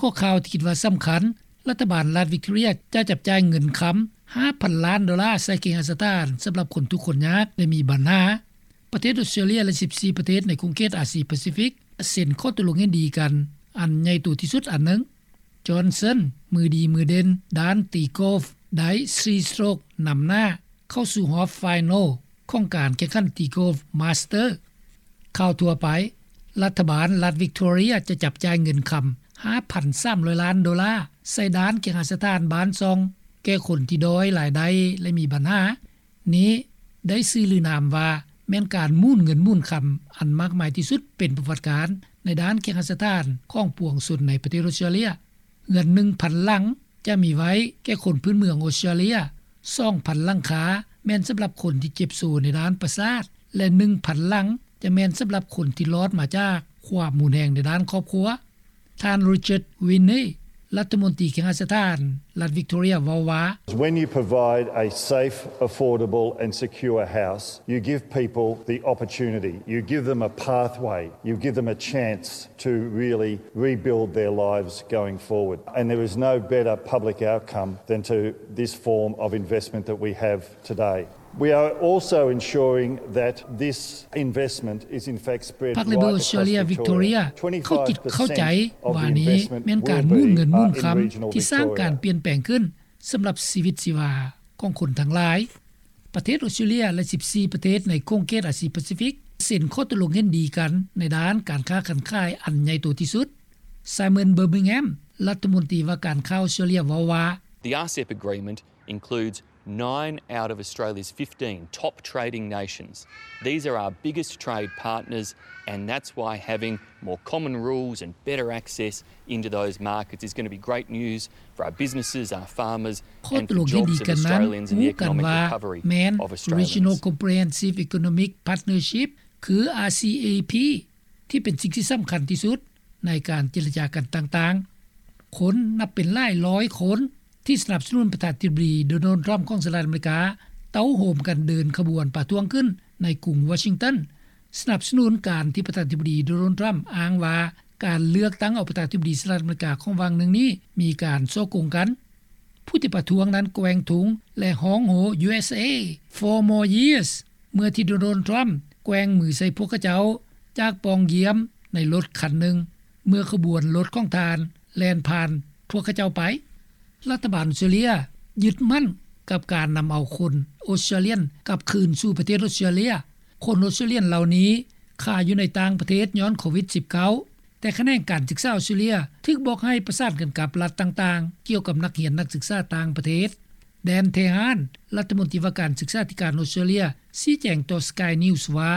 ຂໍ້ຂ່າວທີ່ຄິດວ່າສຳຄັນ, ລັດຖະບານລັດວິກຕໍເຣັຍຈະຈັບຈ່າຍເງິນຄຳ ຫ້າພັນລ້ານໂດລາ ໃສ່ເຄຫະສະຖານສຳລັບຄົນທຸກຄົນຍາກ ແລະມີບັນຫາ. ປະເທດອົດສະຕຣາເລຍ ແລະ ສິບສີ່ປະເທດໃນຂົງເຂດອາຊີປາຊີຟິກ ເຊັນຂໍ້ຕົກລົງເຫັນດີກັນອັນໃຫຍ່ໂຕທີ່ສຸດອັນໜຶ່ງ. ຈອນເຊິນ ມືດີມືເດັ່ນດ້ານຕີກອຟ ໄດ້ສີ່ສະໂຕຣກນຳໜ້າເຂົ້າສູ່ຮອບໄຟນອລຂອງການແຂ່ງຂັນຕີກອຟມາສເຕີ. ຂ່າວທົ່ວໄປ, ລັດຖະບານລັດວິກຕໍເຣັຍຈະຈັບຈ່າຍເງິນຄຳ ຫ້າພັນສາມຮ້ອຍລ້ານໂດລາ ໃສ່ດ້ານເຄຫະສະຖານບ້ານຊ່ອງ ແກ່ຄົນທີ່ດ້ອຍລາຍໄດ້ ແລະມີບັນຫາ. ນີ້ໄດ້ຊື່ຫຼືນາມວ່າ ແມ່ນການໝູນເງິນໝູນຄຳອັນມາກມາຍທີ່ສຸດເປັນປະຫວັດການ ໃນດ້ານເຄຫະສະຖານຂອງປວງຊົນໃນປະເທດອົດສະຕຣາເລຍ. ເຮືອນໜຶ່ງພັນຫຼັງຈະມີໄວ້ແກ່ຄົນພື້ນເມືອງອົດສະຕຣາເລຍ, ສອງພັນຫຼັງຄາແມ່ນສຳລັບຄົນທີ່ເຈັບໂຊໃນດ້ານປະສາດ ແລະ ໜຶ່ງພັນຫຼັງຈະແມ່ນສຳລັບຄົນທີ່ລອດມາຈາກຄວາມຮຸນແຮງໃນດ້ານຄອບຄົວ. ທ່ານ Richard Whinney ລັດຖະມົນຕີເຄຫະສະຖານລັດວິກຕໍເຣັຍເວົ້າວ່າ, When you provide a safe, affordable and secure house, you give people the opportunity, you give them a pathway, you give them a chance to really rebuild their lives going forward. And there is no better public outcome than to this form of investment that we have today. We are also ensuring that this investment is in fact spread right across Victoria. ພາກເລເບີອົດສະຕຣາເລຍ ວິກຕໍເຣັຍ ເຂົາຄິດເຂົ້າໃຈວ່ານີ້ແມ່ນການໝູນເງິນໝູນຄຳທີ່ສ້າງການປ່ຽນແປງຂຶ້ນສຳລັບຊີວິດຊີວາຂອງຄົນທັງຫຼາຍ. ປະເທດອົດສະຕຣາເລຍ ແລະ ສິບສີ່ປະເທດໃນຂົງເຂດອາຊີປາຊີຟິກ ເຊັນຂໍ້ຕົກລົງເຫັນດີກັນໃນດ້ານການຄ້າການຂາຍອັນໃຫຍ່ໂຕທີ່ສຸດ. Simon Birmingham ລັດຖະມົນຕີວ່າການຄ້າອົດສະຕຣາເລຍເວົ້າວ່າ, The RCEP agreement includes nine out of Australia's fifteen top trading nations. These are our biggest trade partners, and that's why having more common rules and better access into those markets is gonna be great news for our businesses, our farmers and for jobs of Australians and the economic recovery of Australians. ຂໍ້ຕົກລົງເຫັນດີກັນນັ້ນ ຮູ້ກັນວ່າແມ່ນ Regional Comprehensive Economic Partnership ຄື RCEP ທີ່ເປັນສິ່ງທີ່ສຳຄັນທີ່ສຸດໃນການເຈລະຈາກັນຕ່າງໆ. ຄົນນັບເປັນຫຼາຍຮ້ອຍຄົນທີ່ສະໜັບສະໜູນປະທານາທິບໍດີ Donald Trump ຂອງສະຫະລັດອາເມລິກາ ເຕົ້າໂຮມກັນເດີນຂະບວນປະທ້ວງຂຶ້ນໃນກຸງວໍຊິງຕັນ ສະໜັບສະໜູນການທີ່ປະທານາທິບໍດີ Donald Trump ອ້າງວ່າການເລືອກຕັ້ງເອົາປະທານາທິບໍດີສະຫະລັດອາເມລິກາຂອງຫວ່າງໜຶ່ງນີ້ມີການສໍ້ໂກງກັນ. ຜູ້ທີ່ປະທ້ວງນັ້ນແກວ່ງທຸງ ແລະ ຮ້ອງໂຮ USA for more years ເມື່ອທີ່ Donald Trump ແກວ່ງມືໃສ່ພວກເຂົາເຈົ້າຈາກປ່ອງຢ້ຽມໃນລົດຄັນໜຶ່ງ ເມື່ອຂະບວນລົດຂອງທ່ານແລ່ນຜ່ານພວກເຂົາເຈົ້າໄປ. ລັດຖະບານອົດສະຕຣາເລຍຍຶດໝັ້ນກັບການນຳເອົາຄົນອົດສະຕຣາລຽນກັບຄືນສູ່ປະເທດອົດສະຕຣາເລຍ. ຄົນອົດສະຕຣາລຽນເຫຼົ່ານີ້ຄາຢູ່ໃນຕ່າງປະເທດຍ້ອນໂຄວິດສິບເກົ້າ ແຕ່ຂະແໜງການສຶກສາອົດສະຕຣາເລຍຖືກບອກໃຫ້ປະສານກັນກັບລັດຕ່າງໆ ກ່ຽວກັບນັກຮຽນນັກສຶກສາຕ່າງປະເທດ. Dan Tehan ລັດຖະມົນຕີວ່າການສຶກສາທິການອົດສະຕຣາເລຍ ຊີ້ແຈງຕໍ່ Sky News ວ່າ,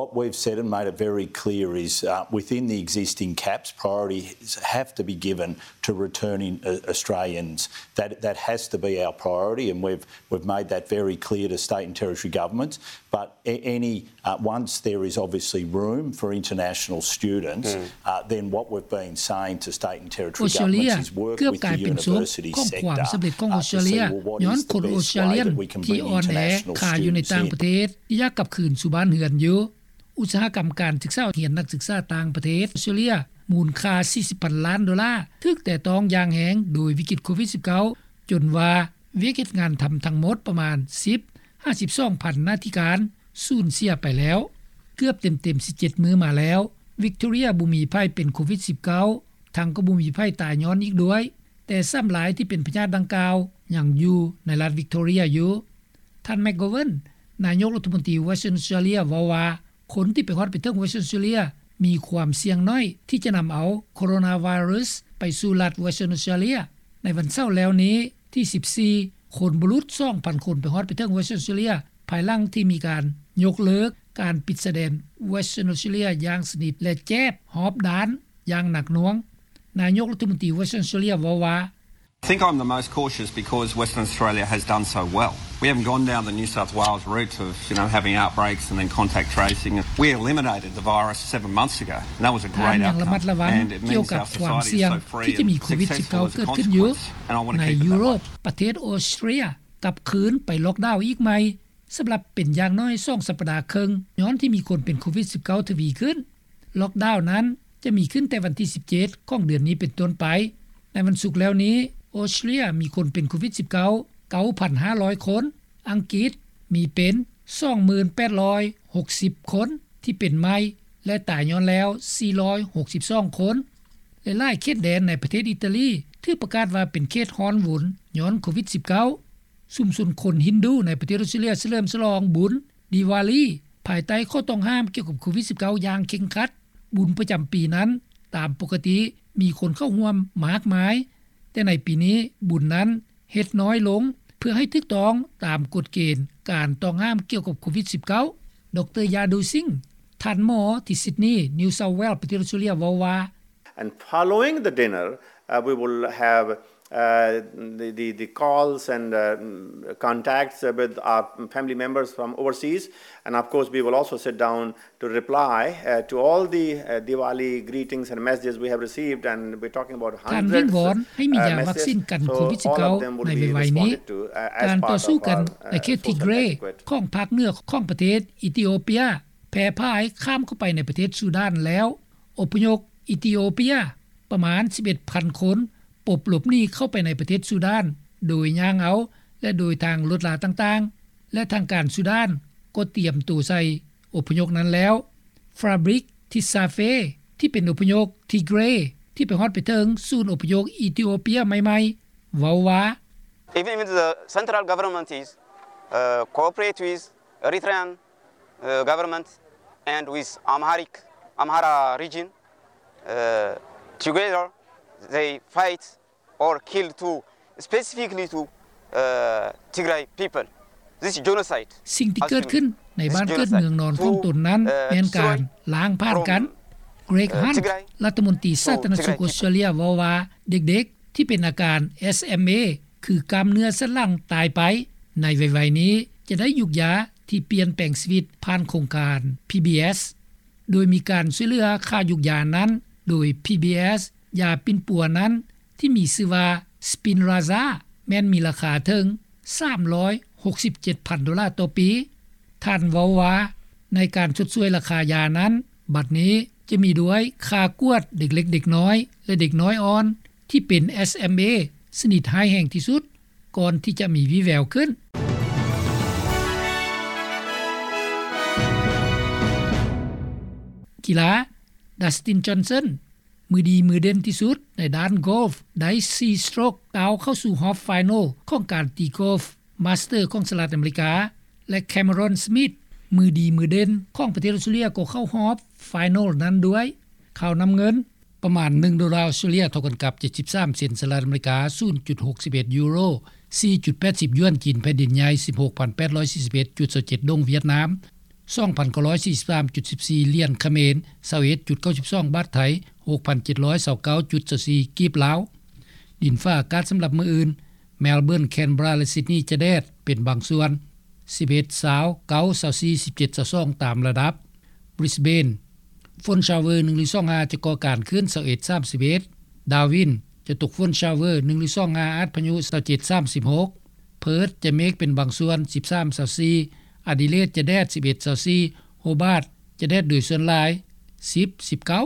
What we've said and made it very clear is, uh, within the existing caps, priorities have to be given to returning, uh, Australians. That, that has to be our priority, and we've, we've made that very clear to state and territory governments. But a-, any, uh, once there is obviously room for international students, uh, then what we've been saying to state and territory governments is work with the university sector, uh, to see, well, what is the best way that we can bring international students in. ອົດສະຕຣາເລຍເກືອບກາຍເປັນສົບຂອງຄວາມສຳເລັດຂອງອົດສະຕຣາເລຍ ຍ້ອນຄົນອົດສະຕຣາເລຍທີ່ອ່ອນແອຄາຢູ່ໃນຕ່າງປະເທດ ທີ່ຢາກກັບຄືນສູ່ບ້ານເຮືອນຢູ່. ອຸດສາຫະກຳການສຶກສາຮຽນນັກສຶກສາຕ່າງປະເທດອົດສະຕຣາເລຍ ມູນຄ່າສີ່ສິບພັນລ້ານໂດລາ ຖືກແຕະຕ້ອງຢ່າງແຮງໂດຍວິກິດໂຄວິດສິບເກົ້າ ຈົນວ່າວຽກເຮັດງານທຳທັງໝົດປະມານສິບຫາສິບສອງພັນໜ້າທີ່ການສູນເສຍໄປແລ້ວ. ເກືອບເຕັມໆສິບເຈັດມື້ມາແລ້ວ ວິກຕໍເຣັຍບໍ່ມີໃຜເປັນໂຄວິດສິບເກົ້າ ທັງກໍບໍ່ມີໃຜຕາຍຍ້ອນອີກດ້ວຍ, ແຕ່ຊ້ຳລາຍທີ່ເປັນພະຍາດດັ່ງກ່າວຍັງຢູ່ໃນລັດວິກຕໍເຣັຍຢູ່. ທ່ານ McGovern ນາຍົກລັດຖະມົນຕີ Western Australia ເວົ້າວ່າ ຄົນທີ່ໄປຮອດໄປເຖິງ Western Australia ມີຄວາມສ່ຽງໜ້ອຍທີ່ຈະນຳເອົາໂຄໂຣນາໄວຣັສໄປສູ່ລັດ Western Australia. ໃນວັນເສົາແລ້ວນີ້ທີສິບສີ່ ຄົນບໍ່ຫຼຸດສອງພັນຄົນໄປຮອດໄປເຖິງ Western Australia ພາຍຫຼັງທີ່ມີການຍົກເລີກການປິດຊາຍແດນ Western Australia ຢ່າງສະໜິດ ແລະ ແຈບຮອບດ້ານຢ່າງໜັກໜ່ວງ. ນາຍົກລັດຖະມົນຕີ Western Australia ເວົ້າວ່າ, I think I'm the most cautious because Western Australia has done so well. We haven't gone down the New South Wales route of, you know, having outbreaks and then contact tracing. We eliminated the virus seven months ago, and that was a great outcome. ທ່ານຍັງລະມັດລະວັງກ່ຽວກັບຄວາມສ່ຽງທີ່ຈະມີໂຄວິດສິບເກົ້າເກີດຂຶ້ນຢູ່ໃນຢູໂຣບ. ປະເທດອົດສະຕຣາເລຍກັບຄືນໄປລັອກດາວອີກໃໝ່ ສຳລັບເປັນຢ່າງໜ້ອຍສອງສັບປະດາເຄິ່ງ ຍ້ອນທີ່ມີຄົນເປັນໂຄວິດສິບເກົ້າທະວີຂຶ້ນ. ລັອກດາວນັ້ນຈະມີຂຶ້ນແຕ່ວັນທີສິບເຈັດຂອງເດືອນນີ້ເປັນຕົ້ນໄປ. ໃນວັນສຸກແລ້ວນີ້ ອອສເຕຣເລັຽມີຄົນເປັນໂຄວິດ-19 ເກົ້າພັນຫ້າຮ້ອຍຄົນ, ອັງກິດມີເປັນ ສອງໝື່ນແປດຮ້ອຍຫົກສິບຄົນທີ່ເປັນໃໝ່ ແລະ ຕາຍຍ້ອນແລ້ວສີ່ຮ້ອຍຫົກສິບສອງຄົນ ແລະ ຫຼາຍເຂດແດນໃນປະເທດອີຕາລີຖືກປະກາດວ່າເປັນເຂດຮ້ອນວຸນຍ້ອນໂຄວິດ-19. ຊຸມຊົນຄົນຮິນດູໃນປະເທດອອສເຕຣເລັຽສະເຫຼີມສະຫຼອງບຸນດີວາລີ ພາຍໃຕ້ຂໍ້ຕ້ອງຫ້າມກ່ຽວກັບໂຄວິດ-19 ຢ່າງເຄັ່ງຄັດ. ບຸນປະຈຳປີນັ້ນຕາມປົກກະຕິມີຄົນເຂົ້າຮ່ວມມາກມາຍ, ແຕ່ໃນປີນີ້ບຸນນັ້ນເຮັດນ້ອຍລົງ ເພື່ອໃຫ້ຖືກຕ້ອງຕາມກົດເກນການຕ້ອງຫ້າມກ່ຽວກັບໂຄວິດ-19. ດຣ ຢາດູຊິງ ທ່ານໝໍທີ່ຊິດນີ ນິວເຊົາແວລ ປະເທດອອສເຕຣເລັຽ ເວົ້າວ່າ And following the dinner, uh, we will have, uh, the, the, the calls and, uh, contacts with our family members from overseas. And of course, we will also sit down to reply, uh, to all the, uh, Diwali greetings and messages we have received. And we're talking about ທ່ານວິງວອນ hundreds ໃຫ້ມີຢາວັກຊິນກັນໂຄວິດ-19 ໃນໄວໆນີ້. ການຕໍ່ສູ້ກັນໃນເຂດທິເກຣຂອງພາກເໜືອຂອງປະເທດອີທິໂອເປຍ ແຜ່ຜາຍຂ້າມເຂົ້າໄປໃນປະເທດຊູດານແລ້ວ. ອົບພະຍົບອີທິໂອເປຍປະມານສິບເອັດພັນຄົນ ປົບຫຼົບໜີເຂົ້າໄປໃນປະເທດຊູດານ ໂດຍຍ່າງເອົາ ແລະ ໂດຍທາງລົດລາຕ່າງໆ ແລະ ທາງການຊູດານກໍຕຽມໂຕໃສ່ອົບພະຍົບນັ້ນແລ້ວ. ຟາບຣິກ ທິຊາເຟ ທີ່ເປັນອົບພະຍົບທີເກຣ ທີ່ໄປຮອດໄປເຖິງສູນອົບພະຍົບອີທິໂອເປຍໃໝ່ໆ ເວົ້າວ່າ Even the central government is, uh, cooperate with Eritrean, uh, government and with Amharic, Amhara region, uh, together they fight or kill to, specifically to, uh, Tigray people. This is genocide. ສິ່ງທີ່ເກີດຂຶ້ນໃນບ້ານເກີດເມືອງນອນຂອງຕົນນັ້ນ ແມ່ນການລ້າງຜ່ານກັນ. ເກຣກ ຮັນ ລັດຖະມົນຕີສາທາລະນະສຸກອອສເຕຣເລັຽ ເວົ້າວ່າ ເດັກໆ ທີ່ເປັນອາການ ເອສເອັມເອ ຄືກ້າມເນື້ອສັນຫຼັງຕາຍໄປ ໃນໄວໆນີ້ຈະໄດ້ຢູກຢາທີ່ປ່ຽນແປງຊີວິດຜ່ານໂຄງການ ພີບີເອສ ໂດຍມີການຊ່ວຍເຫຼືອຄ່າຢູກຢານັ້ນໂດຍ ພີບີເອສ. ຢາປິ່ນປົວນັ້ນທີ່ມີຊື່ວ່າ Spinraza ແມ່ນມີລາຄາເຖິງສາມຮ້ອຍຫົກສິບເຈັດພັນໂດລາຕໍ່ປີ. ທ່ານເວົ້າວ່າ ໃນການຊົດຊ່ວຍລາຄາຢານັ້ນ ບັດນີ້ຈະມີດ້ວຍຄ່າກວດເດັກເລັກເດັກນ້ອຍ ແລະ ເດັກນ້ອຍອ່ອນ ທີ່ເປັນ ເອສເອັມເອ ຊະນິດຮ້າຍແຮງທີ່ສຸດ ກ່ອນທີ່ຈະມີວີ່ແວວຂຶ້ນ. ກິລາ ດັສຕິນ ຈອນສັນ ມືດີມືເດັ່ນທີ່ສຸດໃນດ້ານໂກຟ ໄດ້ສີ່ສະໂຕຣກ ກ້າວເຂົ້າສູ່ຮອບໄຟນອລຂອງການຕີໂກຟ ມາສເຕີຂອງສະຫະລັດອາເມລິກາ ແລະ ແຄເມຣອນ ສະມິດ ມືດີມືເດັ່ນຂອງປະເທດອອສເຕຣເລັຽ ກໍເຂົ້າຮອບໄຟນອລນັ້ນດ້ວຍ. ຂ່າວນຳເງິນ ປະມານໜຶ່ງໂດລາອອສເຕຣເລັຽ ເທົ່າກັນກັບເຈັດສິບສາມເຊັນສະຫະລັດອາເມລິກາ, ສູນຈຸດຫົກສິບເອັດຢູໂຣ, ສີ່ຈຸດແປດສິບຢວນຈີນແຜ່ນດິນໃຫຍ່, ສິບຫົກພັນແປດຮ້ອຍສີ່ສິບເອັດຈຸດຊາວເຈັດດົງຫວຽດນາມ, ສອງພັນເກົ້າຮ້ອຍສີ່ສິບສາມຈຸດສິບສີ່ຫຼຽນຂະເໝນ, ຊາວເອັດຈຸດເກົ້າສິບສອງບາດໄທ, ຫົກພັນເຈັດຮ້ອຍຊາວເກົ້າຈຸດຊາວສີ່ກີບລາວ. ດິນຟ້າອາກາດສຳລັບມື້ອື່ນ, ແມລເບີນ, ແຄນເບຣາ ແລະ ຊິດນີຈະແດດເປັນບາງສ່ວນ, ສິບເອັດ ຊາວ, ເກົ້າ ຊາວສີ່ ສິບເຈັດ ຊາວສອງ ຕາມລະດັບ. ບຣິສເບນ ຝົນຊາວເວີໜຶ່ງຫຼືສອງຫ້າຈະກໍ່ການຂຶ້ນ ຊາວເອັດ ສາມສິບເອັດ. ດາວິນ ຈະຕົກຝົນຊາວເວີໜຶ່ງຫຼືສອງຫ້າ ອາດພະຍຸ ຊາວເຈັດ ສາມສິບຫົກ. ເພີດ ຈະເມກເປັນບາງສ່ວນ ສິບສາມ ຊາວສີ່. ອາດີເລດ ຈະແດດ ສິບເອັດ ຊາວສີ່. ໂຮບາດ ຈະແດດໂດຍສ່ວນຫຼາຍ ສິບ ສິບເກົ້າ.